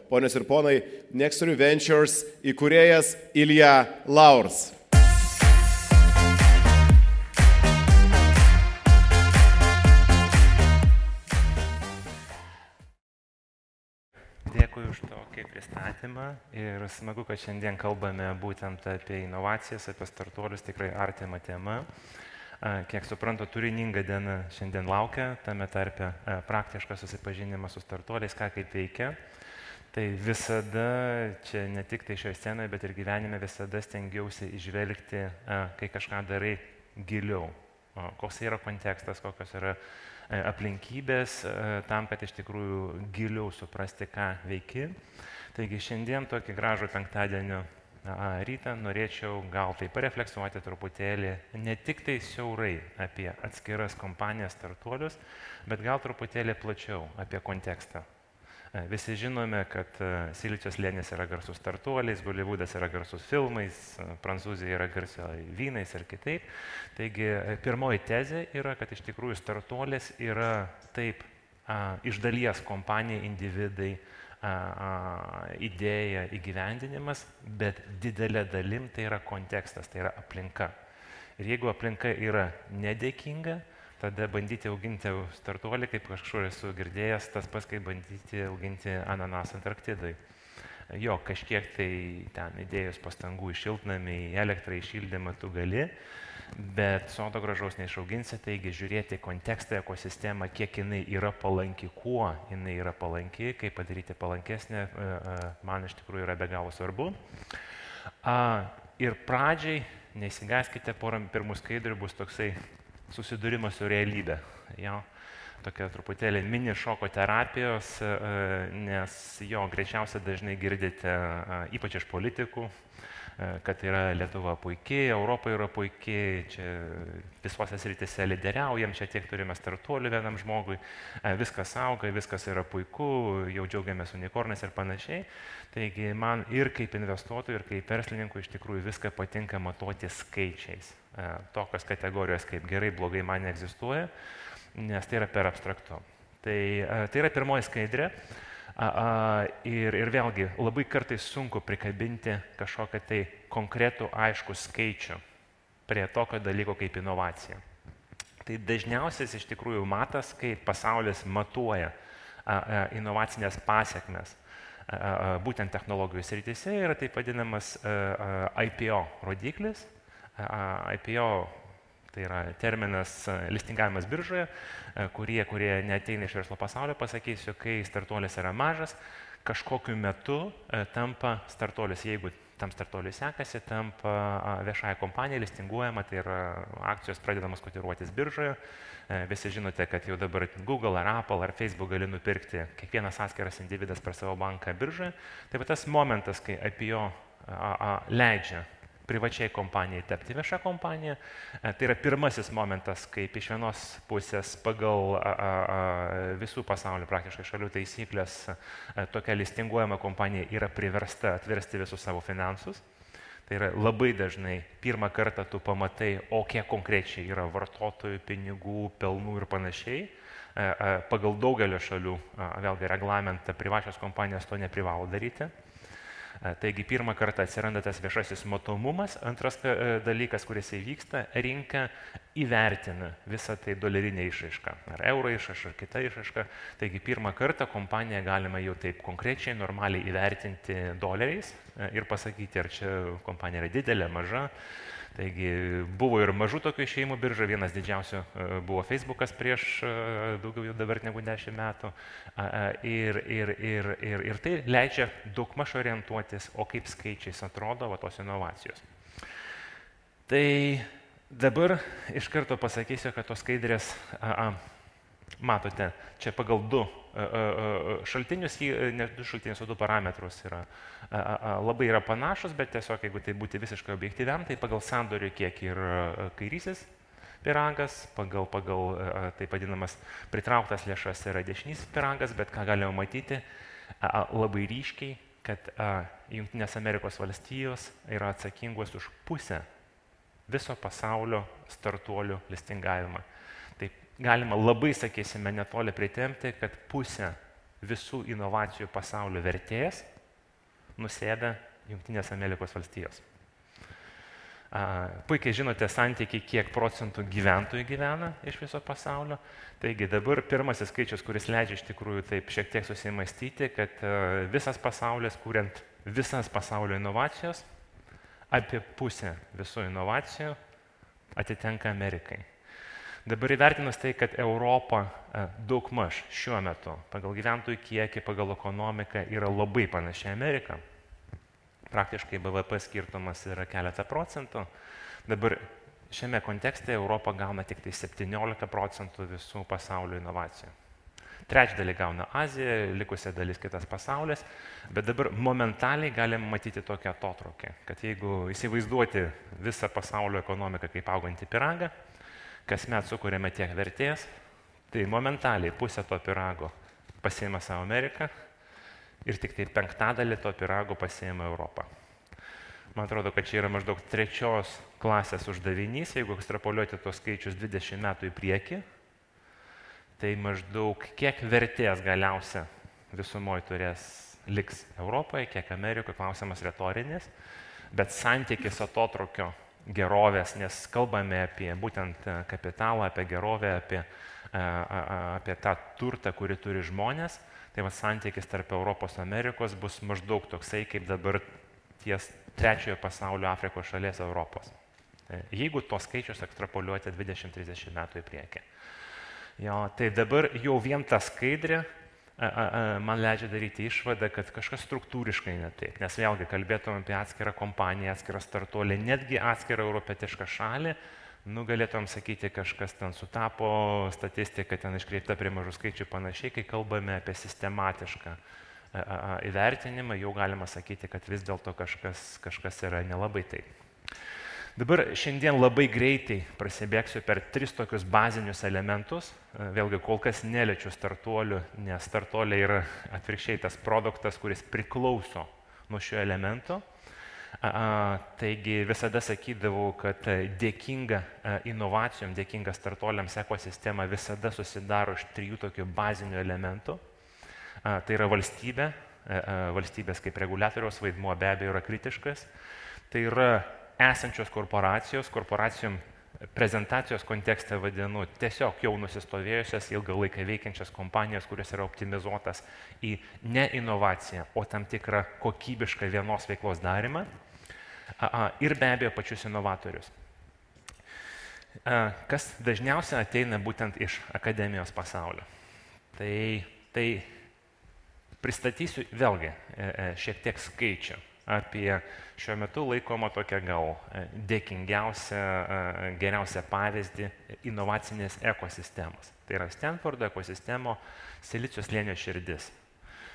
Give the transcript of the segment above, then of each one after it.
ponios ir ponai, Nextory Ventures įkūrėjas Ilja Laurs. Dėkui už tokį pristatymą ir smagu, kad šiandien kalbame būtent apie inovacijas, apie startuolius, tikrai artima tema. Kiek suprantu, turininga diena šiandien laukia, tame tarpe praktiškas susipažinimas su startuoliais, ką kaip veikia. Tai visada, čia ne tik tai šioje scenoje, bet ir gyvenime visada stengiausi išvelgti, kai kažką darai giliau. Koks yra kontekstas, kokios yra aplinkybės, tam, kad iš tikrųjų giliau suprasti, ką veiki. Taigi šiandien tokį gražų penktadienio rytą norėčiau gal tai parefleksuoti truputėlį, ne tik tai siaurai apie atskiras kompanijas, startuolius, bet gal truputėlį plačiau apie kontekstą. Visi žinome, kad Silicio slėnis yra garsus startuoliais, Holivudas yra garsus filmais, Prancūzija yra garsia vynais ir kitaip. Taigi pirmoji tezė yra, kad iš tikrųjų startuolis yra taip iš dalies kompanija, individai, idėja, įgyvendinimas, bet didelė dalim tai yra kontekstas, tai yra aplinka. Ir jeigu aplinka yra nedėkinga, tada bandyti auginti startuolį, kaip kažkur esu girdėjęs, tas pats, kaip bandyti auginti ananasą Antarktidai. Jo, kažkiek tai ten įdėjus pastangų į šiltnamį, į elektrą, į šildymą tu gali, bet sodo gražaus neišauginsi, taigi žiūrėti kontekstą, ekosistemą, kiek jinai yra palanki, kuo jinai yra palanki, kaip padaryti palankesnę, man iš tikrųjų yra be galo svarbu. Ir pradžiai, neįsigaskite, porą pirmų skaidrių bus toksai susidūrimas su realybė. Jo, tokia truputėlį mini šoko terapijos, nes jo greičiausiai dažnai girdite, ypač iš politikų, kad yra Lietuva puikiai, Europa yra puikiai, čia visose srityse lyderiaujam, čia tiek turime startuolių vienam žmogui, viskas auga, viskas yra puiku, jau džiaugiamės unikornais ir panašiai. Taigi man ir kaip investuotojui, ir kaip verslininkui iš tikrųjų viską patinka matuoti skaičiais. Tokios kategorijos kaip gerai, blogai man neegzistuoja, nes tai yra per abstraktu. Tai yra pirmoji skaidrė. Ir vėlgi labai kartais sunku prikabinti kažkokią tai konkretų aiškų skaičių prie tokio dalyko kaip inovacija. Tai dažniausias iš tikrųjų matas, kai pasaulis matuoja inovacinės pasiekmes būtent technologijų srityse, yra taip vadinamas IPO rodiklis. IPO tai yra terminas listingavimas biržoje, kurie neateina iš verslo pasaulio, pasakysiu, kai startuolis yra mažas, kažkokiu metu tampa startuolis, jeigu tam startuoliui sekasi, tampa viešąja kompanija, listinguojama, tai yra akcijos pradedamos kotiruotis biržoje. Visi žinote, kad jau dabar Google ar Apple ar Facebook gali nupirkti kiekvienas atskiras individas per savo banką biržoje. Tai va tas momentas, kai IPO leidžia privačiai kompanijai tapti viešą kompaniją. Tai yra pirmasis momentas, kaip iš vienos pusės pagal visų pasaulio praktiškai šalių taisyklės tokia listinguojama kompanija yra priversta atversti visus savo finansus. Tai yra labai dažnai pirmą kartą tu pamatai, o kiek konkrečiai yra vartotojų, pinigų, pelnų ir panašiai. Pagal daugelio šalių, vėlgi reglamentą, privačios kompanijos to neprivalo daryti. Taigi pirmą kartą atsiranda tas viešasis matomumas. Antras dalykas, kuris įvyksta, rinka įvertina visą tai dolerinę išraišką, ar euro išraišką, ar kitą išraišką. Taigi pirmą kartą kompaniją galima jau taip konkrečiai, normaliai įvertinti doleriais ir pasakyti, ar čia kompanija yra didelė, maža. Taigi buvo ir mažų tokių išėjimų birža, vienas didžiausių buvo Facebookas prieš daugiau jau dabar negu 10 metų. Ir tai leidžia daugmaž orientuotis, o kaip skaičiais atrodo va, tos inovacijos. Tai dabar iš karto pasakysiu, kad tos skaidrės, matote, čia pagal du šaltinius, ne du šaltinius, o du parametrus yra. Labai yra panašus, bet tiesiog, jeigu tai būti visiškai objektyviam, tai pagal sandorių kiek ir kairysis pyragas, pagal taip vadinamas pritrauktas lėšas yra dešinysis pyragas, bet ką galime matyti labai ryškiai, kad Jungtinės Amerikos valstijos yra atsakingos už pusę viso pasaulio startuolių listingavimą. Taip galima labai, sakysime, netoli pritempti, kad pusę visų inovacijų pasaulio vertės nusėda Jungtinės Amerikos valstijos. Puikiai žinote santykį, kiek procentų gyventojų gyvena iš viso pasaulio. Taigi dabar pirmasis skaičius, kuris leidžia iš tikrųjų taip šiek tiek susimastyti, kad visas pasaulis, kuriant visas pasaulio inovacijos, apie pusę visų inovacijų atitenka Amerikai. Dabar įvertinus tai, kad Europa daugmaž šiuo metu pagal gyventojų kiekį, pagal ekonomiką yra labai panaši Amerika, praktiškai BVP skirtumas yra keletą procentų. Dabar šiame kontekste Europa gauna tik tai 17% visų pasaulio inovacijų. Trečdalį gauna Azija, likusia dalis kitas pasaulis, bet dabar momentaliai galim matyti tokią atotrūkį, kad jeigu įsivaizduoti visą pasaulio ekonomiką kaip augantį pyragą, kasmet sukūrėme tiek vertės, tai momentaliai pusę to pyrago pasiima savo Ameriką ir tik tai 1/5 to pyrago pasiima Europą. Man atrodo, kad čia yra maždaug 3 klasės uždavinys, jeigu ekstrapoliuoti tos skaičius 20 metų į priekį, tai maždaug kiek vertės galiausia visumoje liks Europoje, kiek Amerikoje, klausimas retorinis, bet santykis atotrūkio gerovės, nes kalbame apie būtent kapitalą, apie gerovę, apie tą turtą, kurį turi žmonės, tai santykis tarp Europos ir Amerikos bus maždaug toksai, kaip dabar ties trečiojo pasaulio Afrikos šalies Europos. Jeigu tos skaičius ekstrapoliuoti 20-30 metų į priekį. Jo, tai dabar jau vien ta skaidrė man leidžia daryti išvadą, kad kažkas struktūriškai ne taip. Nes vėlgi kalbėtum apie atskirą kompaniją, atskirą startuolį, netgi atskirą europietišką šalį, galėtum sakyti, kažkas ten sutapo, statistika ten iškreipta prie mažų skaičių panašiai, kai kalbame apie sistematišką įvertinimą, jau galima sakyti, kad vis dėlto kažkas yra nelabai taip. Dabar šiandien labai greitai prasibėgsiu per 3 tokius bazinius elementus. Vėlgi kol kas neliečiu startuolių, nes startuoliai yra atvirkščiai tas produktas, kuris priklauso nuo šio elemento. Taigi visada sakydavau, kad dėkinga inovacijom, dėkinga startuoliams ekosistema visada susidaro iš 3 tokių bazinių elementų. Tai yra valstybė, valstybės kaip reguliatoriaus vaidmuo be abejo yra kritiškas. Tai yra esančios korporacijos, korporacijom prezentacijos kontekste vadinu tiesiog jau nusistovėjusias ilgą laiką veikiančias kompanijos, kurios yra optimizuotas į ne inovaciją, o tam tikrą kokybišką vienos veiklos darymą ir be abejo pačius inovatorius. Kas dažniausiai ateina būtent iš akademijos pasaulio. Tai pristatysiu vėlgi šiek tiek skaičių apie šiuo metu laikomą tokią gal dėkingiausią, geriausią pavyzdį inovacinės ekosistemos. Tai yra Stanfordo ekosistemo Silicio slėnio širdis.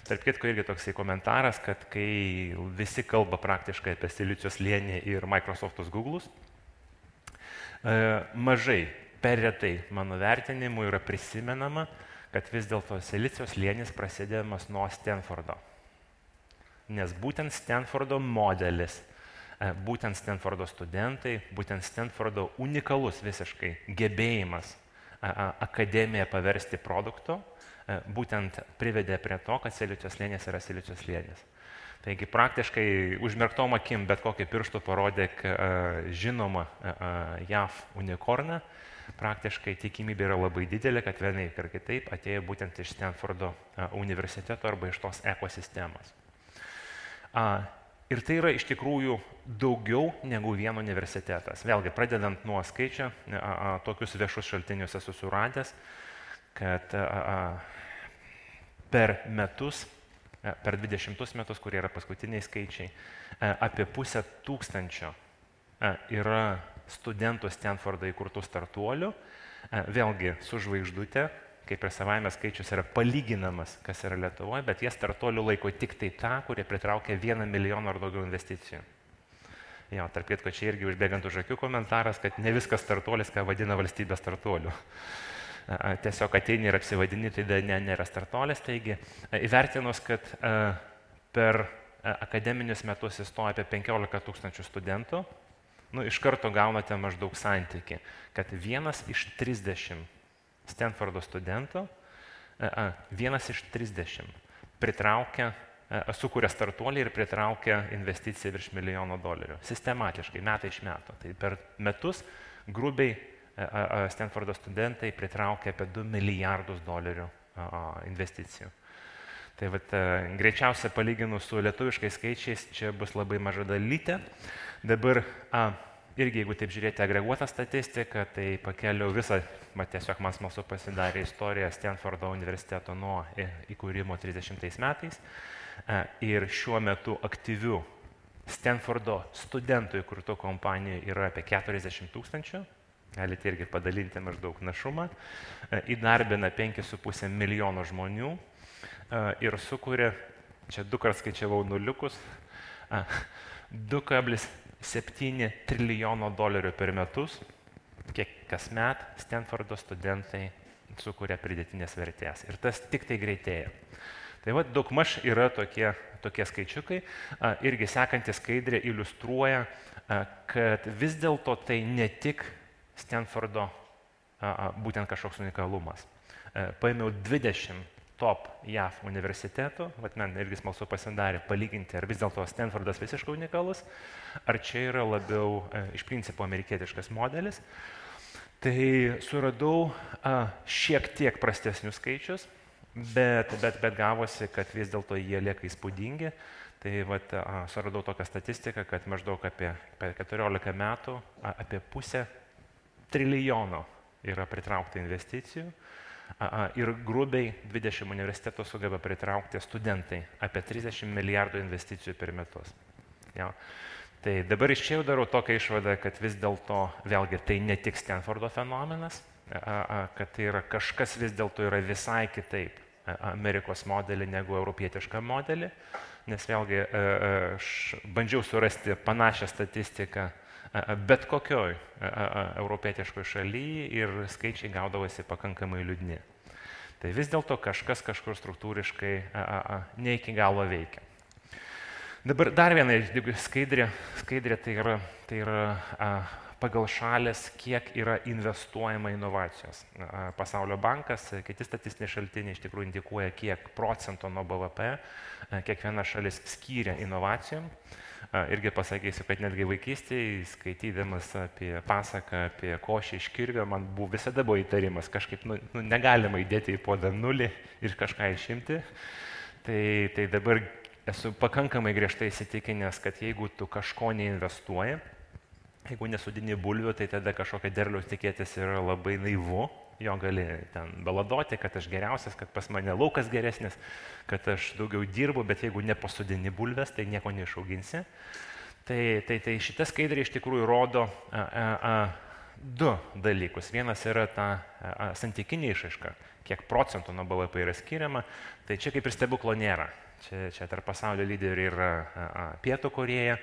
Tarp kitko irgi toksai komentaras, kad kai visi kalba praktiškai apie Silicio slėnį ir Microsoftus Google'us, mažai, per retai mano vertinimu yra prisimenama, kad vis dėlto Silicio slėnis prasidėdamas nuo Stanfordo. Nes būtent Stanfordo modelis, būtent Stanfordo studentai, būtent Stanfordo unikalus visiškai gebėjimas akademiją paversti produktu, būtent privedė prie to, kad Silicio slėnis yra Silicio slėnis. Taigi praktiškai užmerktom akim bet kokį pirštų parodyk žinoma JAV unikorną, praktiškai tikimybė yra labai didelė, kad vienaip ir kitaip atėjo būtent iš Stanfordo universiteto arba iš tos ekosistemos. Ir tai yra iš tikrųjų daugiau negu vien universitetas. Vėlgi, pradedant nuo skaičio, tokius viešus šaltinius esu suradęs, kad per metus, per 20 metus, kurie yra paskutiniai skaičiai, apie 500 yra studentų Stanfordo įkurtų startuolių, vėlgi su žvaigždute, kaip ir savaime skaičius yra palyginamas, kas yra Lietuvoje, bet jie startuolių laiko tik tai tą, kurie pritraukia 1 milijoną ar daugiau investicijų. Jo, tarp kitko, čia irgi užbėgant už akių komentaras, kad ne viskas startuolis, ką vadina valstybės startuoliu. Tiesiog ateini ir apsivadini, tai nėra startuolis. Taigi, įvertinus, kad per akademinius metus įstoja apie 15 000 studentų, iš karto gaunate maždaug santykį, kad 1 iš 30 Stanfordo studentų Vienas iš 30 sukuria startuolį ir pritraukia investiciją virš $1 milijono. Sistematiškai, metai iš metų. Tai per metus grubiai Stanfordo studentai pritraukia apie $2 milijardus investicijų. Tai greičiausia palyginus su lietuviškais skaičiais, čia bus labai maža dalytė. Dabar irgi, jeigu taip žiūrėti agreguotą statistiką, tai pakeliau visą, tiesiog man smalsu pasidarė istoriją Stanfordo universiteto nuo įkūrimo 30 metais. Ir šiuo metu aktyvių Stanfordo studentų įkurtų kompanijų yra apie 40 000. Galite irgi padalinti maždaug našumą. Įdarbina 5,5 milijono žmonių ir sukuria, čia 2 kart skaičiavau nuliukus, $2,7 trilijono per metus, kiek kasmet Stanfordo studentai sukuria pridėtinės vertės. Ir tas tik tai greitėja. Tai daugmaž yra tokie skaičiukai. Irgi sekanti skaidrė iliustruoja, kad vis dėlto tai ne tik Stanfordo būtent kažkoks unikalumas. Paėmiau 20 top JAV universitetų, man irgi smalsu pasidarė palyginti, ar vis dėlto Stanfordas visiškai unikalus, ar čia yra labiau iš principo amerikietiškas modelis. Tai suradau šiek tiek prastesnius skaičius, bet gavosi, kad vis dėlto jie lieka įspūdingi. Tai suradau tokią statistiką, kad maždaug apie 14 metų apie $500 trilijono yra pritraukta investicijų ir grubiai 20 universitetų sugeba pritraukti studentai apie 30 milijardų investicijų per metus. Ja. Tai dabar iš čia jau darau tokią išvadą, kad vis dėlto vėlgi tai ne tik Stanfordo fenomenas, kad tai yra kažkas vis dėlto yra visai kitaip Amerikos modelį negu europietišką modelį, nes vėlgi aš bandžiau surasti panašią statistiką bet kokioj europietiškoj šalyje ir skaičiai gaudavosi pakankamai liūdni. Tai vis dėlto kažkas kažkur struktūriškai ne iki galo veikia. Dabar dar viena skaidrė tai yra pagal šalis, kiek yra investuojama inovacijos. Pasaulio bankas, kiti statistiniai šaltiniai iš tikrųjų indikuoja, kiek procentų nuo BVP kiekviena šalis skyrė inovacijom. Irgi pasakysiu, kad netgi vaikystėje, skaitydamas apie pasaką, apie košę iš kirvio, man visada buvo įtarimas, kažkaip negalima įdėti į puodą nulį ir kažką išimti. Tai dabar esu pakankamai griežtai įsitikinęs, kad jeigu tu kažko neinvestuoji, jeigu nesudini bulvių, tai tada kažkokia derliaus tikėtis yra labai naivu. Jo gali ten baladoti, kad aš geriausias, kad pas mane laukas geresnis, kad aš daugiau dirbu, bet jeigu nepasodini bulves, tai nieko neišauginsi. Tai šita skaidrė iš tikrųjų rodo du dalykus. Vienas yra ta santykinė išraiška, kiek procentų nuo BVP yra skiriama. Tai čia kaip ir stebuklo nėra. Čia tarp pasaulio lyderių yra Pietų Korėja,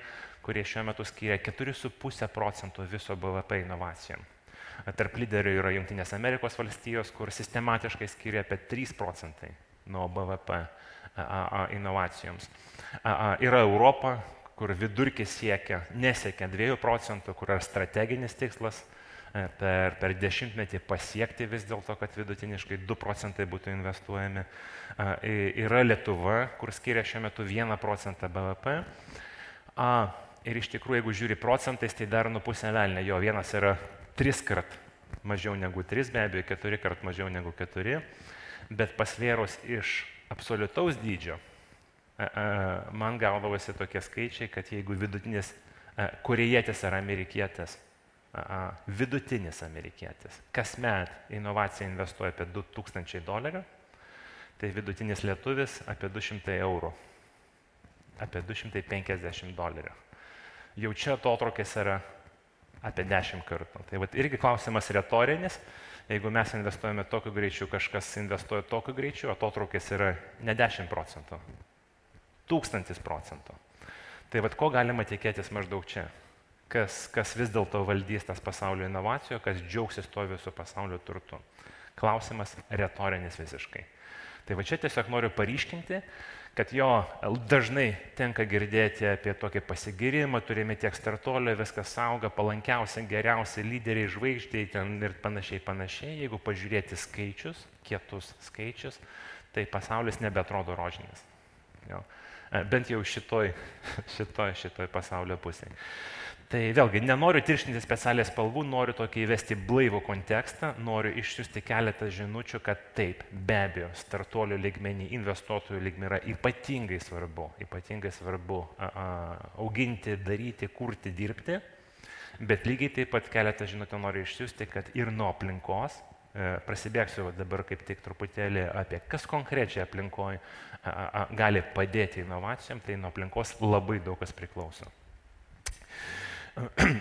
kurie šiuo metu skiria 4,5% viso BVP inovacijom. Tarp lyderių yra Jungtinės Amerikos valstijos, kur sistematiškai skiria apie 3% nuo BVP inovacijoms. Yra Europa, kur vidurkis nesiekia 2%, kur yra strateginis tikslas per dešimtmetį pasiekti vis dėlto, kad vidutiniškai 2% būtų investuojami. Yra Lietuva, kur skiria šiuo metu 1% BVP. Ir iš tikrųjų, jeigu žiūri procentais, tai dar pusę velnio. Jo, vienas yra 3 kart mažiau negu 3, be abejo 4 kart mažiau negu 4, bet pasvėrus iš absoliutaus dydžio, man gaudavosi tokie skaičiai, kad jeigu vidutinis korėjietis ar amerikietis, vidutinis amerikietis, kasmet inovaciją investuoja apie $2,000, tai vidutinis lietuvis apie 200 eurų, apie $250. Jau čia atotrūkis yra apie 10 kartų. Tai irgi klausimas retorinis. Jeigu mes investuojame tokiu greičiu, kažkas investuoja tokiu greičiu, atotrūkis yra ne 10%, 1000%. Tai ko galima tikėtis maždaug čia? Kas vis dėlto valdys tas pasaulio inovacijų, kas džiaugsis to visų pasaulio turtu? Klausimas retorinis visiškai. Tai čia tiesiog noriu paryškinti, kad jo dažnai tenka girdėti apie tokį pasigirimą, turime tiek startuolio, viskas auga, palankiausia, geriausia, lyderiai, žvaigždžiai ten ir panašiai. Jeigu pažiūrėti skaičius, kietus skaičius, tai pasaulis nebeatrodo rožinis. Jo. Bent jau šitoj pasaulio pusėje. Tai vėlgi, nenoriu tirštinti specialiai spalvų, noriu tokį įvesti blaivų kontekstą, noriu išsiųsti keletą žinučių, kad taip, be abejo, startuolių lygmenį, investuotojų lygmenį yra ypatingai svarbu auginti, daryti, kurti, dirbti, bet lygiai taip pat keletą žinučių noriu išsiųsti, kad ir nuo aplinkos, prasibėgsiu dabar kaip tik truputėlį apie kas konkrečiai aplinkoje gali padėti inovacijom, tai nuo aplinkos labai daug kas priklauso.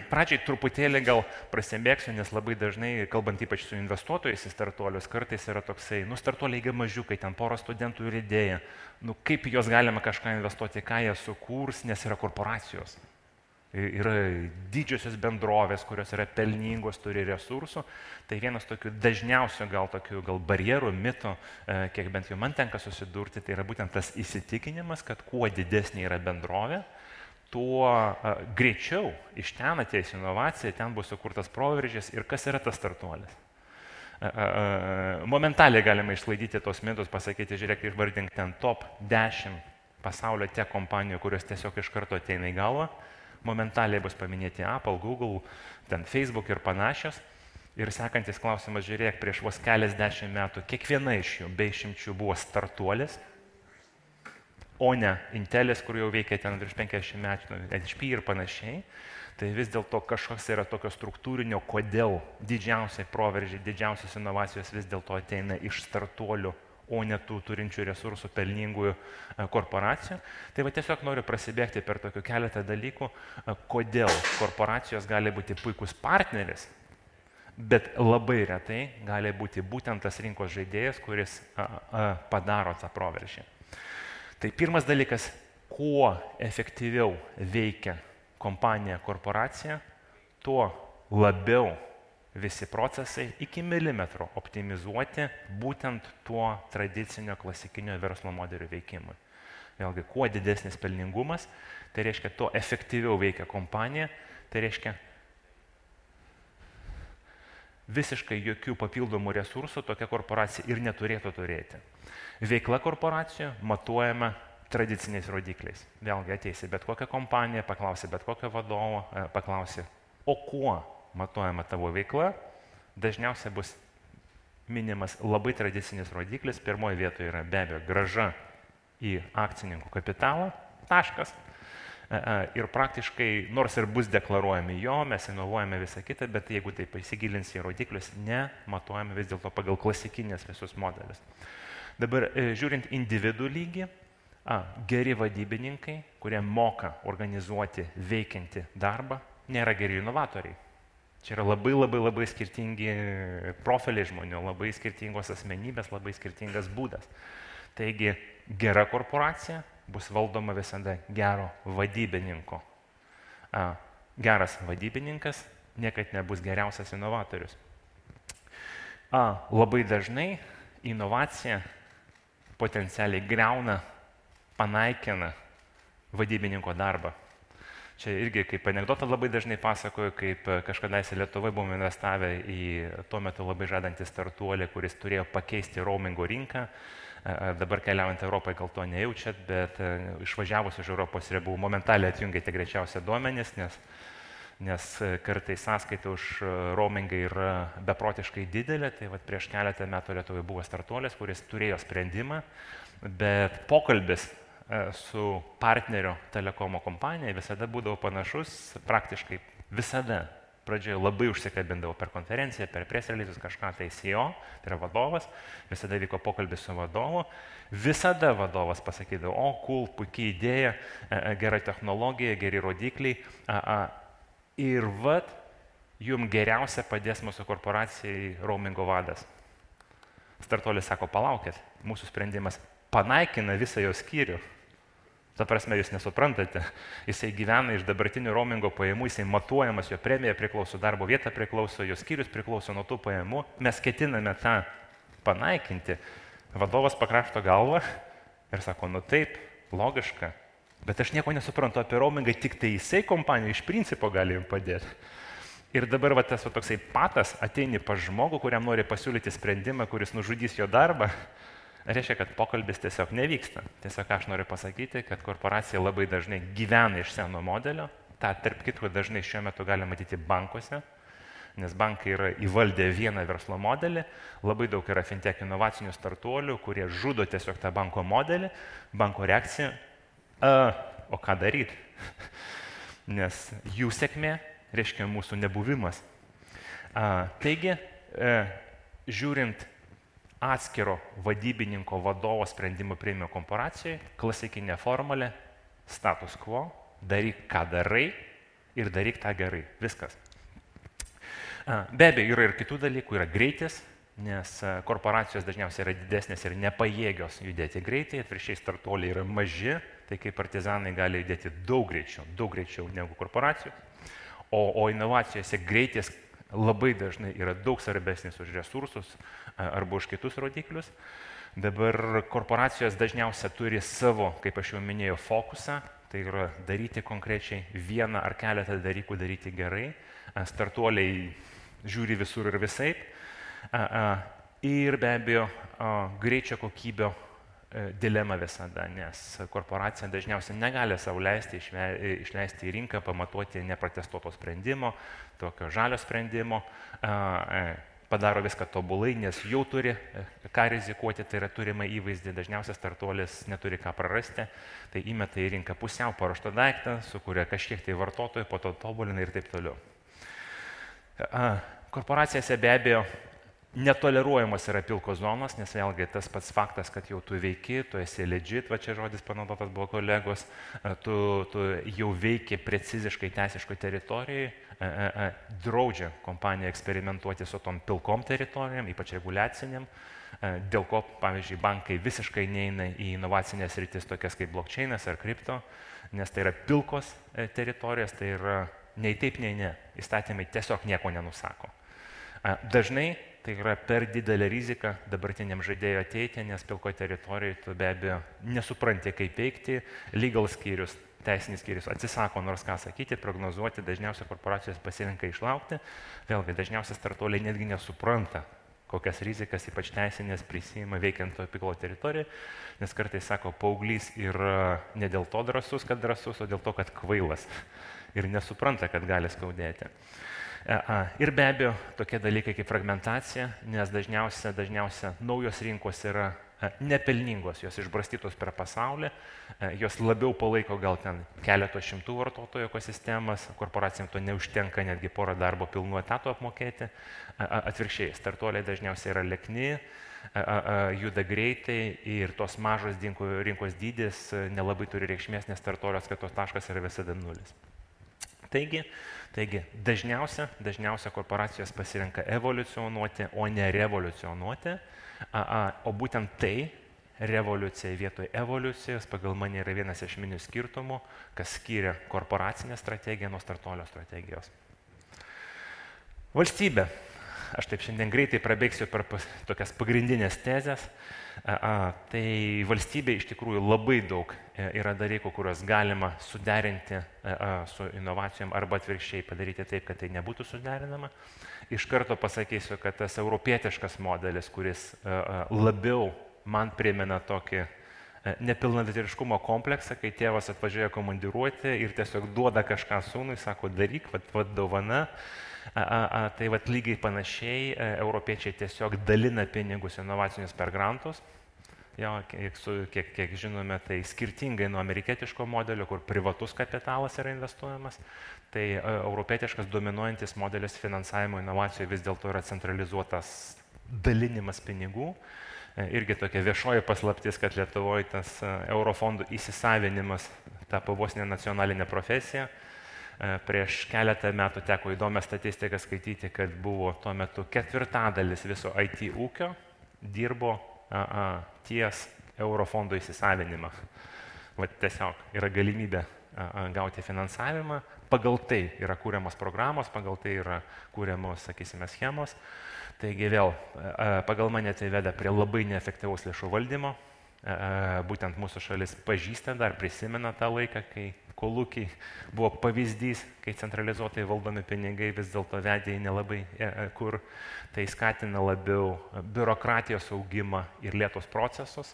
Pradžiai truputėlį gal prasibėgsiu, nes labai dažnai, kalbant ypač su investuotojais į startuolius, kartais yra toksai, startuoliai gi mažiukai, ten porą studentų ir idėja, kaip juos galima kažką investuoti, ką jie sukūrs, nes yra korporacijos. Yra didžiosios bendrovės, kurios yra pelningos, turi resursų. Tai vienas tokių dažniausių gal barjerų, mitų, kiek bent jau man tenka susidurti, tai yra būtent tas įsitikinimas, kad kuo didesnė yra bendrovė, tuo greičiau iš ten ateis inovacija, ten bus sukurtas proveržis ir kas yra tas startuolis. Momentaliai galima išsklaidyti tos mitus, pasakyti, žiūrėk, išvardink ten top 10 pasaulio tech kompanijų, kurios tiesiog iš karto ateina į galvą. Momentaliai bus paminėti Apple, Google, ten Facebook ir panašios. Ir sekantis klausimas, žiūrėk, prieš vos keliasdešimt metų kiekviena iš jų be išimčių buvo startuolis, o ne Intelis, kur jau veikia ten virš 50 metų, HP ir panašiai, tai vis dėlto kažkoks yra tokio struktūrinio, kodėl didžiausiai proveržiai, didžiausios inovacijos vis dėlto ateina iš startuolių, o ne tų turinčių resursų pelningųjų korporacijų. Tai va tiesiog noriu prasibėgti per tokių keletą dalykų, kodėl korporacijos gali būti puikus partneris, bet labai retai gali būti būtent tas rinkos žaidėjas, kuris padaro tą proveržį. Tai pirmas dalykas, kuo efektyviau veikia kompanija, korporacija, tuo labiau visi procesai iki milimetro optimizuoti būtent tuo tradicinio klasikinio verslo modelio veikimui. Vėlgi, kuo didesnis pelningumas, tai reiškia, tuo efektyviau veikia kompanija, tai reiškia, visiškai jokių papildomų resursų tokia korporacija ir neturėtų turėti. Veikla korporacijų matuojama tradiciniais rodikliais. Vėlgi ateisi bet kokią kompaniją, paklausi bet kokio vadovo, paklausi, o kuo matuojama tavo veikla, dažniausiai bus minimas labai tradicinis rodiklis. Pirmoje vietoje yra be abejo grąža į akcininkų kapitalą, taškas. Ir praktiškai, nors ir bus deklaruojami jo, mes inovuojame visą kitą, bet jeigu taip įsigilins į rodiklius, nematuojame vis dėlto pagal klasikinės visus modelius. Dabar žiūrint individų lygį, geri vadybininkai, kurie moka organizuoti veikiantį darbą, nėra geri inovatoriai. Čia yra labai skirtingi profiliai žmonių, labai skirtingos asmenybės, labai skirtingas būdas. Taigi gera korporacija bus valdoma visada gero vadybininko. Geras vadybininkas niekad nebus geriausias inovatorius. Labai dažnai inovacija potencialiai greuna, panaikina vadybininko darbą. Čia irgi kaip anekdotą labai dažnai pasakoju, kaip kažkadaise Lietuvoje buvome investavę į tuo metu labai žadantį startuolį, kuris turėjo pakeisti roamingo rinką. Dabar keliaujant Europoje gal to nejaučiat, bet išvažiavus iš Europos ribų momentaliai atjungėte greičiausiai duomenis, nes kartais sąskaita už roamingą yra beprotiškai didelė. Tai vat prieš keletą metų Lietuvoje buvo startuolis, kuris turėjo sprendimą, bet pokalbis su partnerio telekomo kompanija visada būdavo panašus, praktiškai visada. Pradžioje labai užsikabindavo per konferenciją, per press releases kažką, tai CEO, tai yra vadovas, visada vyko pokalbis su vadovu, visada vadovas pasakydavo, o cool, puikiai idėja, gera technologija, geri rodikliai, ir vat, jums geriausia padės mūsų korporacijai roamingo vadas. Startuolis sako, palaukit, mūsų sprendimas panaikina visą jo skyrių. Ta prasme, jūs nesuprantate, jisai gyvena iš dabartinių roamingo pajamų, jisai matuojamas, jo premija priklauso, darbo vieta priklauso, jo skyrius priklauso nuo tų pajamų, mes ketiname tą panaikinti. Vadovas pakrašto galvą Ir sako, nu taip, logiška, bet aš nieko nesuprantu apie roamingą, tik tai jisai kompanija iš principo gali jums padėti. Ir dabar va, tas va, toksai patas ateini pas žmogų, kuriam nori pasiūlyti sprendimą, kuris nužudys jo darbą, reiškia, kad pokalbis tiesiog nevyksta. Tiesiog aš noriu pasakyti, kad korporacija labai dažnai gyvena iš seno modelio, tą tarp kitko dažnai šiuo metu galime matyti bankuose, nes bankai yra įvaldę vieną verslo modelį, labai daug yra fintech inovacinių startuolių, kurie žudo tiesiog tą banko modelį, banko reakcija, o ką daryti? Nes jų sėkmė reiškia mūsų nebuvimas. Taigi, žiūrint atskiro vadybininko vadovo sprendimų priėmimo korporacijoje, klasikinė formulė, status quo, daryk ką darai ir daryk tą gerai. Viskas. Be abejo, yra ir kitų dalykų, yra greitis, nes korporacijos dažniausiai yra didesnės ir nepajėgios judėti greitai, atvirkščiai startuoliai yra maži, tai kaip partizanai gali judėti daug greičiau negu korporacijos. O inovacijose greitis labai dažnai yra daug svarbesnis už resursus arba už kitus rodiklius. Dabar korporacijos dažniausiai turi savo, kaip aš jau minėjau, fokusą, tai yra daryti konkrečiai vieną ar keletą dalykų daryti gerai. Startuoliai žiūri visur ir visaip. Ir be abejo, greičio kokybio dilema visada, nes korporacija dažniausiai negali savo leisti išleisti į rinką, pamatuoti neprotestuoto sprendimo, tokio žalio sprendimo, padaro viską tobulai, nes jau turi ką rizikuoti, tai yra turima įvaizdį, dažniausiai startuolis neturi ką prarasti, tai įmeta į rinką pusiau paruoštą daiktą, sukuria kažkiek tai vartotojų, po to tobulina ir taip toliau. Korporacijose be abejo netoleruojamas yra pilkos zonos, nes vėlgi tas pats faktas, kad jau tu veiki, tu esi legit, va čia žodis panaudotas buvo kolegos, tu jau veiki preciziškai teisiškai teritorijai, draudžia kompanija eksperimentuoti su tom pilkom teritorijom, ypač reguliaciniam, dėl ko, pavyzdžiui, bankai visiškai neina į inovacinės rytis tokias kaip blockchainas ar kripto, nes tai yra pilkos teritorijos, tai yra nei taip, nei ne. Įstatymai tiesiog nieko nenusako. Dažnai tai yra per didelė rizika dabartiniam žaidėjui ateiti, nes pilko teritorijoje tu be abejo nesupranti, kaip veikti, legal skyrius, teisinis skyrius atsisako nors ką sakyti, prognozuoti, dažniausiai korporacijos pasirinka išlaukti, vėlgi dažniausiai startuoliai netgi nesupranta, kokias rizikas, ypač teisinės, prisima veikiant to pilko teritorijoje, nes kartais sako, paauglys yra ne dėl to drąsus, kad drąsus, o dėl to, kad kvailas ir nesupranta, kad gali skaudėti. Ir be abejo, tokie dalykai kaip fragmentacija, nes dažniausia naujos rinkos yra nepelningos, jos išbrastytos per pasaulį, jos labiau palaiko gal ten keletos šimtų vartotojų ekosistemas, korporacijams to neužtenka netgi porą darbo pilnų etatų apmokėti, atvirkščiai, startuoliai dažniausiai yra lekni, juda greitai ir tos mažos rinkos dydis nelabai turi reikšmės, nes startuolio atskaitos taškas yra visada nulis. Taigi dažniausia korporacijos pasirenka evoliucionuoti, o ne revoliucionuoti, o būtent tai, revoliucija vietoj evoliucijos, pagal mane yra vienas iš esminių skirtumų, kas skiria korporacinę strategiją nuo startuolio strategijos. Valstybė. Aš taip šiandien greitai prabėgsiu per tokias pagrindinės tezės. Tai valstybė iš tikrųjų labai daug yra dalykų, kuriuos galima suderinti su inovacijom arba atvirkščiai padaryti taip, kad tai nebūtų suderinama. Iš karto pasakysiu, kad tas europietiškas modelis, kuris labiau man primena tokį nepilnavertiškumo kompleksą, kai tėvas atvažiuoja komandiruoti ir tiesiog duoda kažką sūnui, sako daryk, vat dovana. Tai vat lygiai panašiai europiečiai tiesiog dalina pinigus inovacinius per grantus. Jo, kiek žinome, tai skirtingai nuo amerikietiško modelio, kur privatus kapitalas yra investuojamas, tai europietiškas dominuojantis modelis finansavimo inovacijų vis dėlto yra centralizuotas dalinimas pinigų. Irgi tokia viešoji paslaptis, kad Lietuvoje tas eurofondų įsisavinimas tapo vos ne nacionalinė profesija. Prieš keletą metų teko įdomią statistiką skaityti, kad buvo tuo metu 1/4 viso IT ūkio dirbo ties eurofondų įsisavinimą. Tiesiog yra galimybė gauti finansavimą, pagal tai yra kūriamos programos, pagal tai yra kūriamos, sakysime, schemos. Taigi vėl, pagal mane tai veda prie labai neefektyvaus lėšų valdymo, Būtent mūsų šalis pažįsta dar, prisimena tą laiką, kai kolūkiai buvo pavyzdys, kai centralizuotai valdomi pinigai vis dėlto vedė į nelabai kur. Tai skatina labiau biurokratijos augimą ir lėtus procesus.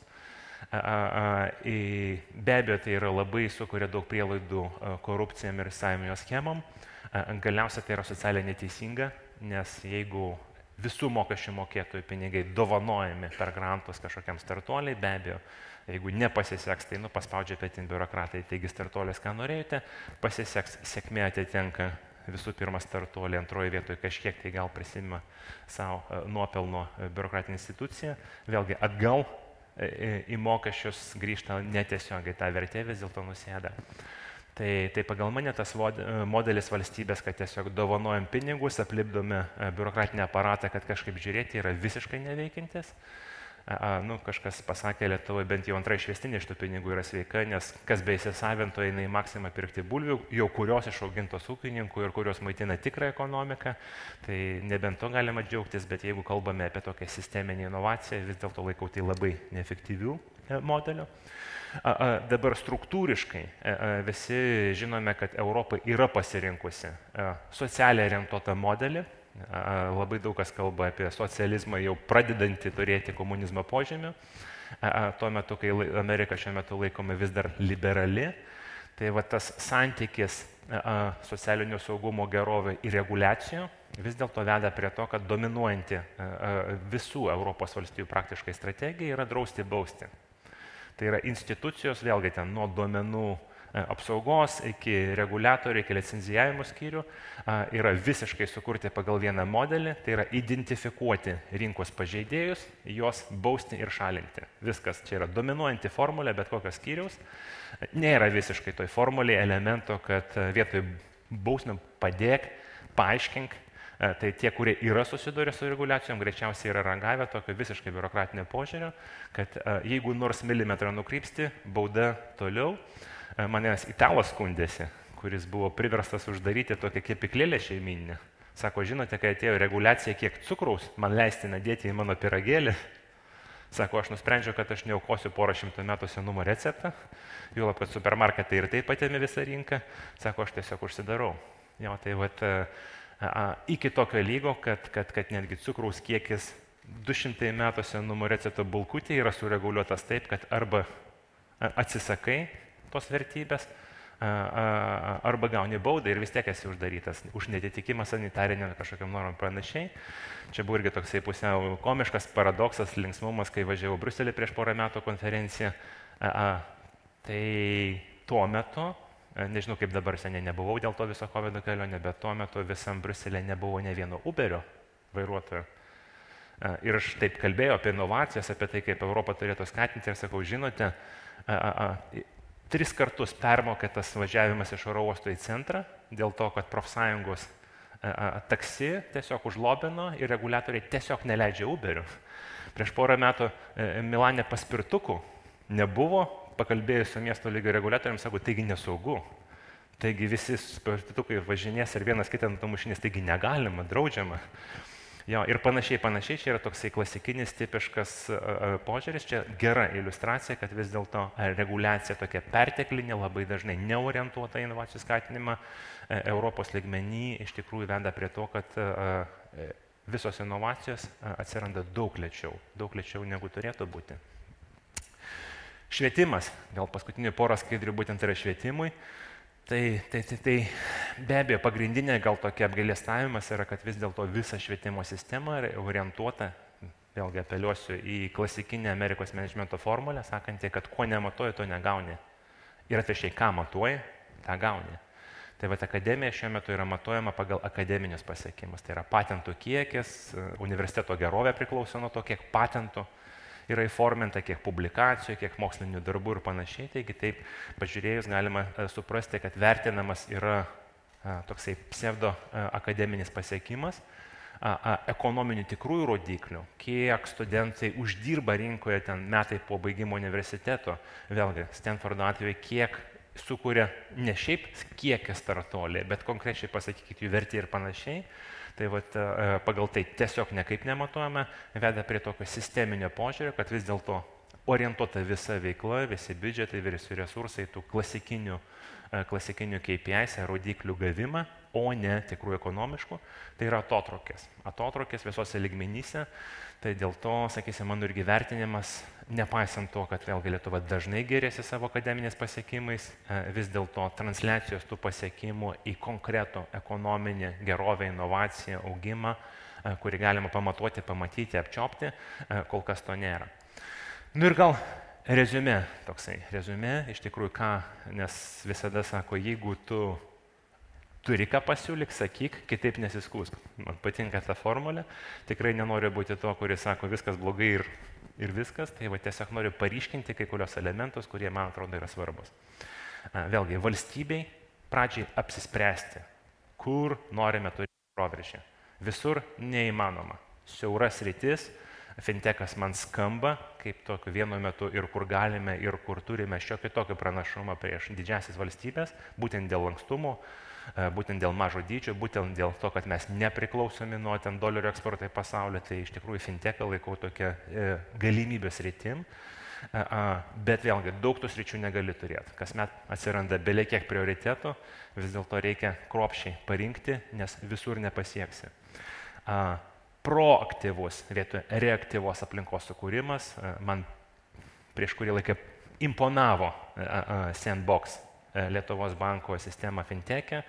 Be abejo, tai yra labai sukuria daug prielaidų korupcijam ir įstatyminio schemam. Galiausiai tai yra socialiai neteisinga, nes jeigu visų mokesčių mokėtojų pinigai dovanojami per grantus kažkokiam startuoliai, be abejo, jeigu nepasiseks, tai paspaudžia petin biurokratai, taigi startuolis, ką norėjote, pasiseks, sėkmė atitenka visų pirma startuolį, antroje vietoje kažkiek tai gal prisimima savo nuopelno biurokratinė institucija, vėlgi atgal į mokesčius grįžta netiesiogiai, ta vertė vis dėlto nusėda. Tai pagal mane tas modelis valstybės, kad tiesiog dovanojam pinigus, aplipdome biurokratinį aparatą, kad kažkaip žiūrėti, yra visiškai neveikintis. Kažkas pasakė, Lietuvoje bent jau antra išvestinė iš tų pinigų yra sveika, nes kas be įsisavinto eina į Maksimą pirkti bulvių, jau kurios išaugintos ūkininkų ir kurios maitina tikrą ekonomiką, tai nebent to galima džiaugtis, bet jeigu kalbame apie tokią sisteminę inovaciją, vis dėlto laikau tai labai neefektyvių modelių. Dabar struktūriškai visi žinome, kad Europa yra pasirinkusi socialiai orientuotą modelį. Labai daug kas kalba apie socializmą jau pradedantį turėti komunizmo požymių. Tuo metu, kai Amerika šiuo metu laikoma vis dar liberali, tai va tas santykis socialinio saugumo gerovė ir reguliacijų vis dėlto veda prie to, kad dominuojanti visų Europos valstybių praktiškai strategija yra drausti bausti. Tai yra institucijos, vėlgi ten nuo duomenų apsaugos iki reguliatorių, iki licenzijavimo skyrių, yra visiškai sukurti pagal vieną modelį, tai yra identifikuoti rinkos pažeidėjus, juos bausti ir šalinti. Viskas, čia yra dominuojanti formulė, bet kokios skyriaus. Nėra visiškai toj formulėje elemento, kad vietoj bausmių padėk, paaiškink. Tai tie, kurie yra susidūrę su reguliacijom, greičiausiai yra ragavę tokio visiškai biurokratinio požiūrio, kad jeigu nors milimetrą nukrypsti, bauda toliau. Manęs italas skundėsi, kuris buvo priverstas uždaryti tokią kepyklėlę šeimyninę. Sako, žinote, kai atėjo reguliacija, kiek cukraus man leistina dėti į mano pyragėlį. Sako, aš nusprendžiau, kad aš neaukosiu porą šimtų metų senumo receptą, juolab, kad supermarketai ir taip atėmė visą rinką. Sako, aš tiesiog užsidarau. Jo, tai vat, iki tokio lygo, kad netgi cukraus kiekis 200 metų senumo recepto bulkutė yra sureguliuotas taip, kad arba atsisakai tos vertybės, arba gauni baudą ir vis tiek esi uždarytas už netitikimą sanitarinėm kažkokiam normam panašiai. Čia buvo irgi toksai pusiau komiškas paradoksas, linksmumas, kai važiavau Briuselį prieš porą metų konferenciją. Tai tuo metu, nežinau kaip dabar, seniai nebuvau dėl to viso COVID kelionė, bet tuo metu visam Briuselė nebuvo ne vieno Uberio vairuotojo. Ir aš taip kalbėjau apie inovacijas, apie tai, kaip Europą turėtų skatinti ir sakau, žinote, 3 kartus permokėtas važiavimas iš oro uosto į centrą dėl to, kad profsąjungos taksi tiesiog užlobino ir reguliatoriai tiesiog neleidžia Uberių. Prieš porą metų Milane paspirtukų nebuvo, pakalbėjus su miesto lygio reguliatoriams, sako, taigi nesaugu. Taigi visi paspirtukai važinės ir vienas kitą numušinės, taigi negalima, draudžiama. Jo, ir panašiai, čia yra toksai klasikinis, tipiškas požiūris, čia gera iliustracija, kad vis dėlto reguliacija tokia perteklinė, labai dažnai neorientuota į inovacijų skatinimą Europos lygmenį iš tikrųjų veda prie to, kad visos inovacijos atsiranda daug lėčiau negu turėtų būti. Švietimas, gal paskutinių porą skaidrių būtent yra švietimui. Tai be abejo pagrindinė gal tokia apgailestavimas yra, kad vis dėlto visa švietimo sistema yra orientuota, vėlgi apeliuosiu į klasikinę Amerikos menedžmento formulę, sakantį, kad ko nematuoji, to negauni. Ir atvirkščiai, ką matuoji, tą gauni. Tai vat akademija šiuo metu yra matuojama pagal akademinius pasiekimus. Tai yra patentų kiekis, universiteto gerovė priklauso nuo to, kiek patentų yra įforminta, kiek publikacijų, kiek mokslinių darbų ir panašiai. Taigi taip pažiūrėjus galima suprasti, kad vertinamas yra toksai pseudo akademinis pasiekimas, ekonominių tikrųjų rodiklių, kiek studentai uždirba rinkoje ten metai po baigimo universiteto, vėlgi Stanfordo atveju, kiek sukuria ne šiaip kiekį startuoliai, bet konkrečiai pasakykit jų vertė ir panašiai. Tai vat, pagal tai tiesiog nekaip nematuojame, veda prie tokio sisteminio požiūrio, kad vis dėlto orientuota visa veikla, visi biudžetai, visi resursai, tų klasikinių KPIs, rodiklių gavimą, o ne tikrų ekonomiškų, tai yra atotrukis. Atotrukis visose lygmenyse, tai dėl to, sakysim, mano irgi vertinimas, nepaisant to, kad vėlgi Lietuva dažnai geriasi savo akademinės pasiekimais, vis dėlto transliacijos tų pasiekimų į konkretų ekonominį gerovę, inovaciją, augimą, kurį galima pamatuoti, pamatyti, apčiopti, kol kas to nėra. Nu ir gal reziumė toksai. Reziumė, iš tikrųjų ką, nes visada sako, jeigu tu turi ką pasiūlyk, sakyk, kitaip nesiskūsk. Man patinka ta formulė, tikrai nenoriu būti to, kuris sako, viskas blogai ir viskas, tai va tiesiog noriu paryškinti kai kurios elementus, kurie man atrodo yra svarbus. Vėlgi, valstybei pradžiai apsispręsti, kur norime turėti proveržį. Visur neįmanoma. Siauras rytis, fintechas man skamba kaip tokiu vienu metu ir kur galime, ir kur turime šiokį tokį pranašumą prieš didžiasis valstybės, būtent dėl lankstumo, būtent dėl mažo dydžio, būtent dėl to, kad mes nepriklausomi nuo ten dolerio eksporto į pasaulį, tai iš tikrųjų fintechą laikau tokia galimybės rytim, bet vėlgi daug tų sričių negali turėti. Kasmet atsiranda belekiek prioritetų, vis dėlto reikia kruopščiai parinkti, nes visur nepasieksi. Proaktyvus vietoj reaktyvos aplinkos sukūrimas, man prieš kurį laiką imponavo Sandbox Lietuvos banko sistema fintech'e,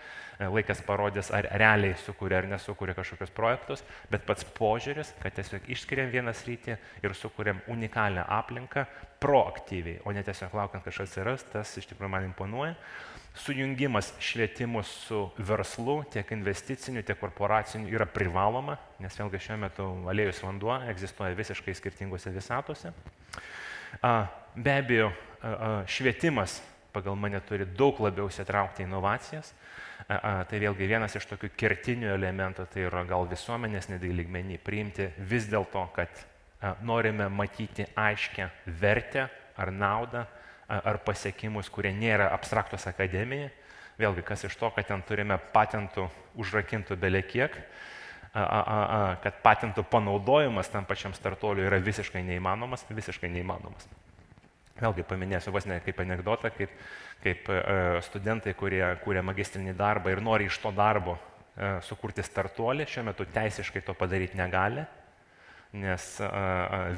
laikas parodys, ar realiai sukuria ar nesukuria kažkokius projektus, bet pats požiūris, kad tiesiog išskiriam vieną sritį ir sukuriam unikalią aplinką proaktyviai, o ne tiesiog laukiant kažkas atsiras, tas iš tikrųjų man imponuoja. Sujungimas švietimu su verslu, tiek investiciniu, tiek korporaciniu yra privaloma, nes vėlgi šiuo metu aliejus vanduo egzistuoja visiškai skirtingose visatose. Be abejo, švietimas pagal mane turi daug labiau įsitraukti į inovacijas. Tai vėlgi vienas iš tokių kertinių elementų, tai yra gal visuomenės lygmenį priimti vis dėlto, kad norime matyti aiškę vertę ar naudą, ar pasiekimus, kurie nėra abstraktus akademijai. Vėlgi, kas iš to, kad ten turime patentų užrakintų belekiek, kad patentų panaudojimas tam pačiam startuoliui yra visiškai neįmanomas. Vėlgi paminėsiu vos ne kaip anekdotą, kaip studentai, kurie kūrė magistrinį darbą ir nori iš to darbo sukurti startuolį, šiuo metu teisiškai to padaryti negali, nes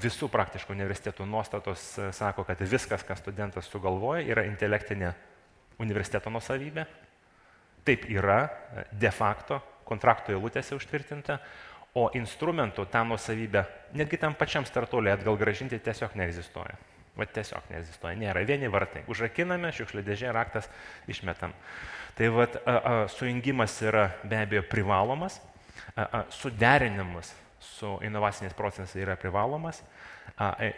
visų praktiškai universitetų nuostatos sako, kad viskas, ką studentas sugalvoja, yra intelektinė universiteto nuosavybė. Taip yra de facto kontrakto eilutėse užtvirtinta, o instrumentų tą nuosavybę netgi tam pačiam startuoliui atgal grąžinti tiesiog neegzistuoja. Tiesiog neegzistuoja, nėra vieni vartai. Užrakiname, šiukšlių dėžė, raktas išmetam. Tai sujungimas yra be abejo privalomas, suderinimas su inovaciniais procesais yra privalomas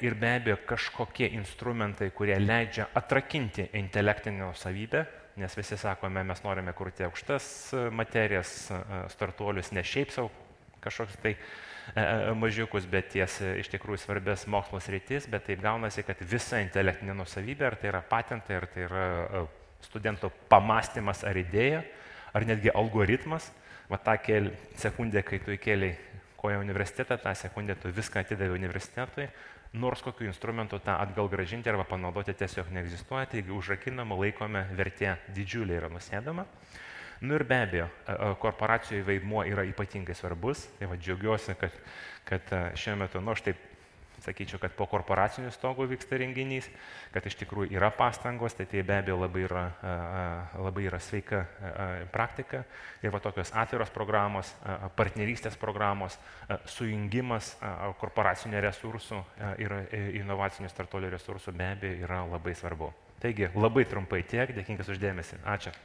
ir be abejo kažkokie instrumentai, kurie leidžia atrakinti intelektinę savybę, nes visi sakome, mes norime kurti aukštas materijas, startuolius, ne šiaip savo kažkoks tai mažiukus, bet ties iš tikrųjų svarbės mokslo sritis, bet taip gaunasi, kad visa intelektinė nuosavybė, ar tai yra patentai, ar tai yra studento pamastymas ar idėja, ar netgi algoritmas, tą sekundę, kai tu įkėlei koją universitetą, tą sekundę tu viską atidavai universitetui, nors kokiu instrumentu tą atgal grąžinti arba panaudoti tiesiog neegzistuoja, taigi užrakinama, laikome, vertė didžiulė yra nusėdama. Nu ir be abejo, korporacijų vaidmuo yra ypatingai svarbus, tai džiaugiuosi, kad šiuo metu, aš taip sakyčiau, kad po korporacinių stogų vyksta renginys, kad iš tikrųjų yra pastangos, tai be abejo labai yra sveika praktika ir tokios atviros programos, partnerystės programos, sujungimas korporacinių resursų ir inovacinių startuolių resursų be abejo yra labai svarbu. Taigi labai trumpai tiek, dėkingas už dėmesį. Ačiū.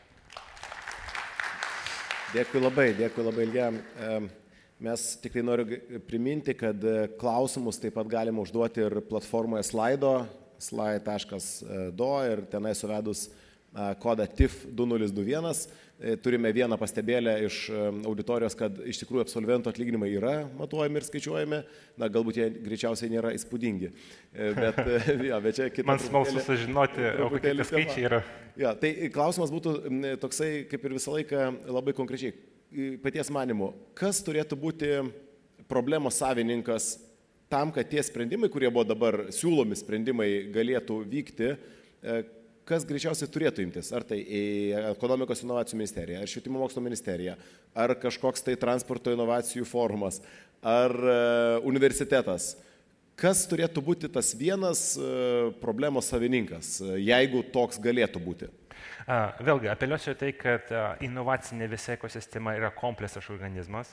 Dėkui labai Ilja. Mes tikrai noriu priminti, kad klausimus taip pat galima užduoti ir platformoje slide.do ir tenai suvedus kodą TIF2021. Turime vieną pastebėlę iš auditorijos, kad iš tikrųjų absolventų atlyginimai yra matuojami ir skaičiuojami, galbūt jie greičiausiai nėra įspūdingi. Bet čia kita man smalsu sužinoti, o kokie skaičiai yra. Tai klausimas būtų toksai, kaip ir visą laiką, labai konkrečiai. Paties manimu, kas turėtų būti problemos savininkas tam, kad tie sprendimai, kurie buvo dabar siūlomi sprendimai, galėtų vykti, kas greičiausiai turėtų imtis? Ar tai ekonomikos inovacijų ministerija, ar švietimo mokslo ministerija, ar kažkoks tai transporto inovacijų forumas, ar universitetas? Kas turėtų būti tas vienas problemos savininkas, jeigu toks galėtų būti? Vėlgi, apeliuosiu tai, kad inovacinė visa ekosistema yra kompleksas organizmas,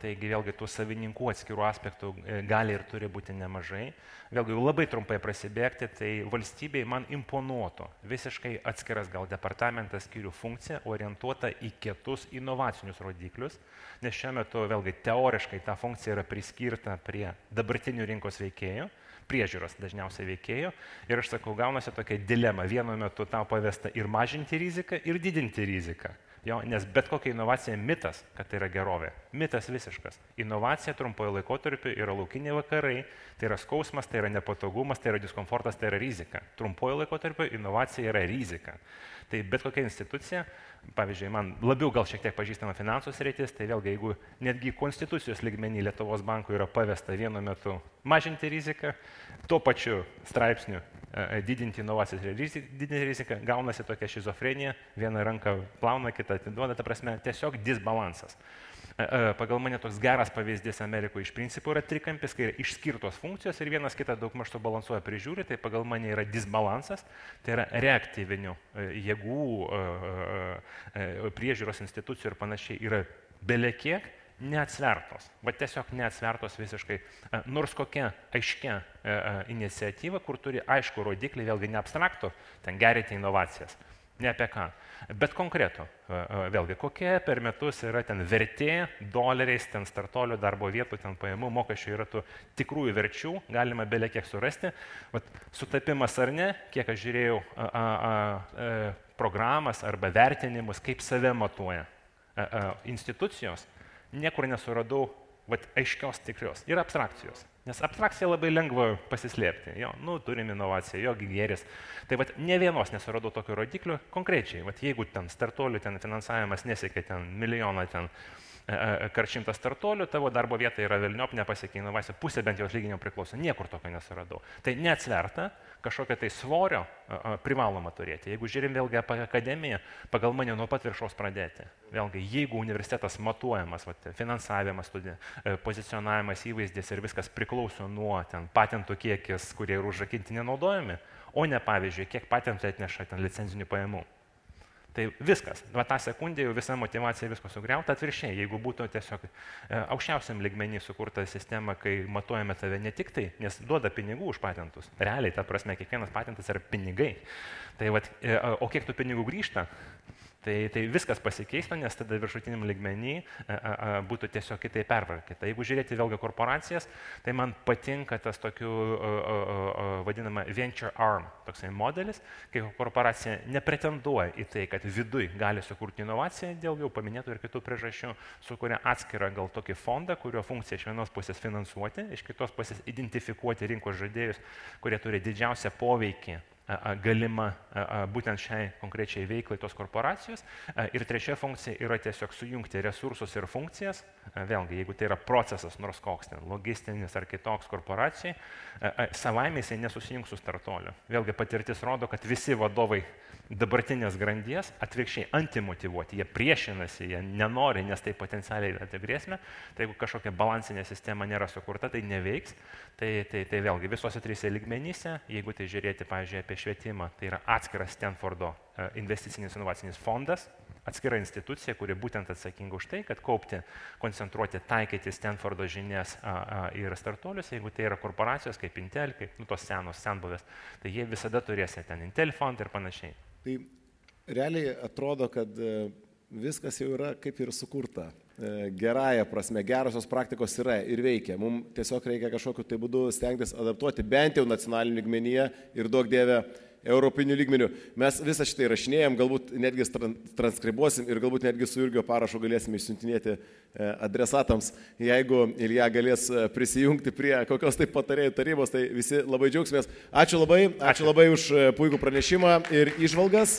taigi vėlgi tų savininkų atskirų aspektų gali ir turi būti nemažai. Vėlgi, labai trumpai prasibėgti, tai valstybei man imponuotų visiškai atskiras gal departamentas skyrių funkcija orientuota į kitus inovacinius rodiklius, nes šiuo metu vėlgi teoriškai ta funkcija yra priskirta prie dabartinių rinkos veikėjų, priežiūros dažniausiai veikėjų. Ir aš sakau, gaunasi tokia dilema. Vienu metu tau pavesta ir mažinti riziką, ir didinti riziką. Jo, nes bet kokia inovacija mitas, kad tai yra gerovė. Mitas visiškas. Inovacija trumpojo laikotarpiu yra laukiniai vakarai, tai yra skausmas, tai yra nepatogumas, tai yra diskomfortas, tai yra rizika. Trumpojo laikotarpiu inovacija yra rizika. Tai bet kokia institucija, pavyzdžiui, man labiau gal šiek tiek pažįstama finansų sritis, tai vėlgi, jeigu netgi konstitucijos lygmenį Lietuvos bankų yra pavesta vienu metu mažinti riziką, tuo pačiu straipsniu didinti inovacijas ir didinti riziką, gaunasi tokia šizofrenija, viena ranka plauna, kita atiduoda, ta prasme, tiesiog disbalansas. Pagal mane toks geras pavyzdys Amerikoje iš principo yra trikampis, kai yra išskirtos funkcijos ir vienas kitą daugmaž subalansuoja prižiūri, tai pagal mane yra disbalansas, tai yra reaktyvinių jėgų, priežiūros institucijų ir panašiai yra belekiek neatsvertos, va tiesiog neatsvertos visiškai, nors kokia aiškia iniciatyva, kur turi aišku rodiklį, vėlgi ne abstraktų, ten gerinti inovacijas. Ne apie ką, bet konkretų, vėlgi, kokie per metus yra ten vertė, doleriais, ten startuolių darbo vietų, ten pajamų, mokesčių yra tų tikrųjų verčių, galima belė kiek surasti. Vat, sutapimas ar ne, kiek aš žiūrėjau programas arba vertinimus, kaip save matuoja institucijos, niekur nesuradau aiškios tikrios. Yra abstrakcijos. Nes abstrakcija labai lengva pasislėpti. Jo, turim inovaciją, jo gėris. Tai ne vienos nesuradau tokio rodiklio konkrečiai. Jeigu ten startuolių finansavimas nesiekia ten milijoną kart 100 startuolių, tavo darbo vieta yra velniop, nepasiekia inovacijų, pusė bent jau atlyginimo priklauso, niekur tokio nesuradau. Tai neatsverta, kažkokią tai svorio privaloma turėti. Jeigu žiūrim vėlgi apie akademiją, pagal mane nuo pat viršaus pradėti. Vėlgi, jeigu universitetas matuojamas, finansavimas, pozicionavimas, įvaizdis ir viskas priklauso nuo patentų kiekis, kurie yra užrakinti nenaudojami, o ne pavyzdžiui, kiek patentų atneša licenzinių pajamų. Tai viskas, tą sekundę jau visa motivacija visko sugriauta, atvirkščiai, jeigu būtų tiesiog aukščiausiam lygmenį sukurta sistema, kai matuojame tave ne tik tai, nes duoda pinigų už patentus, realiai, ta prasme, kiekvienas patentas yra pinigai, tai o kiek tų pinigų grįžta, tai viskas pasikeistų, nes tada viršutiniam lygmenį būtų tiesiog kitaip pervarkyta. Jeigu žiūrėti vėlgi korporacijas, tai man patinka tas tokių vadinama venture arm toksai modelis, kai korporacija nepretenduoja į tai, kad viduj gali sukurti inovaciją, dėl jau paminėtų ir kitų priežasčių, sukuria atskirą gal tokį fondą, kurio funkcija iš vienos pusės finansuoti, iš kitos pusės identifikuoti rinkos žaidėjus, kurie turi didžiausią poveikį galima būtent šiai konkrečiai veiklai tos korporacijos. Ir trečia funkcija yra tiesiog sujungti resursus ir funkcijas. Vėlgi, jeigu tai yra procesas, nors koks ten, logistinis ar kitoks korporacijai, savaime jisai nesusijungs su startuoliu. Vėlgi, patirtis rodo, kad visi vadovai dabartinės grandies atvirkščiai antimotyvuoti, jie priešinasi, jie nenori, nes tai potencialiai yra grėsmė. Tai jeigu kažkokia balansinė sistema nėra sukurta, tai neveiks. Tai vėlgi visose trise lygmenyse, jeigu tai žiūrėti, pavyzdžiui, apie švietimą, tai yra atskiras Stanfordo investicinis inovacinis fondas, atskira institucija, kuri būtent atsakinga už tai, kad kaupti, koncentruoti, taikyti Stanfordo žinias ir startuolius, jeigu tai yra korporacijos kaip Intel, kaip tos senos senbuvės, tai jie visada turės ten Intel fond ir panašiai. Tai realiai atrodo, kad viskas jau yra kaip ir sukurta. Gerąją prasme, gerosios praktikos yra ir veikia. Mums tiesiog reikia kažkokiu tai būdu stengtis adaptuoti bent jau nacionaliniu lygmenyje ir duok dieve europinių lygmenių. Mes visą šitą įrašinėjom, galbūt netgi transkribuosim ir galbūt netgi su Jurgio parašu galėsime išsiuntinėti adresatams. Jeigu Ilja galės prisijungti prie kokios tai patarėjų tarybos, tai visi labai džiaugsimės. Ačiū labai už puikų pranešimą ir įžvalgas.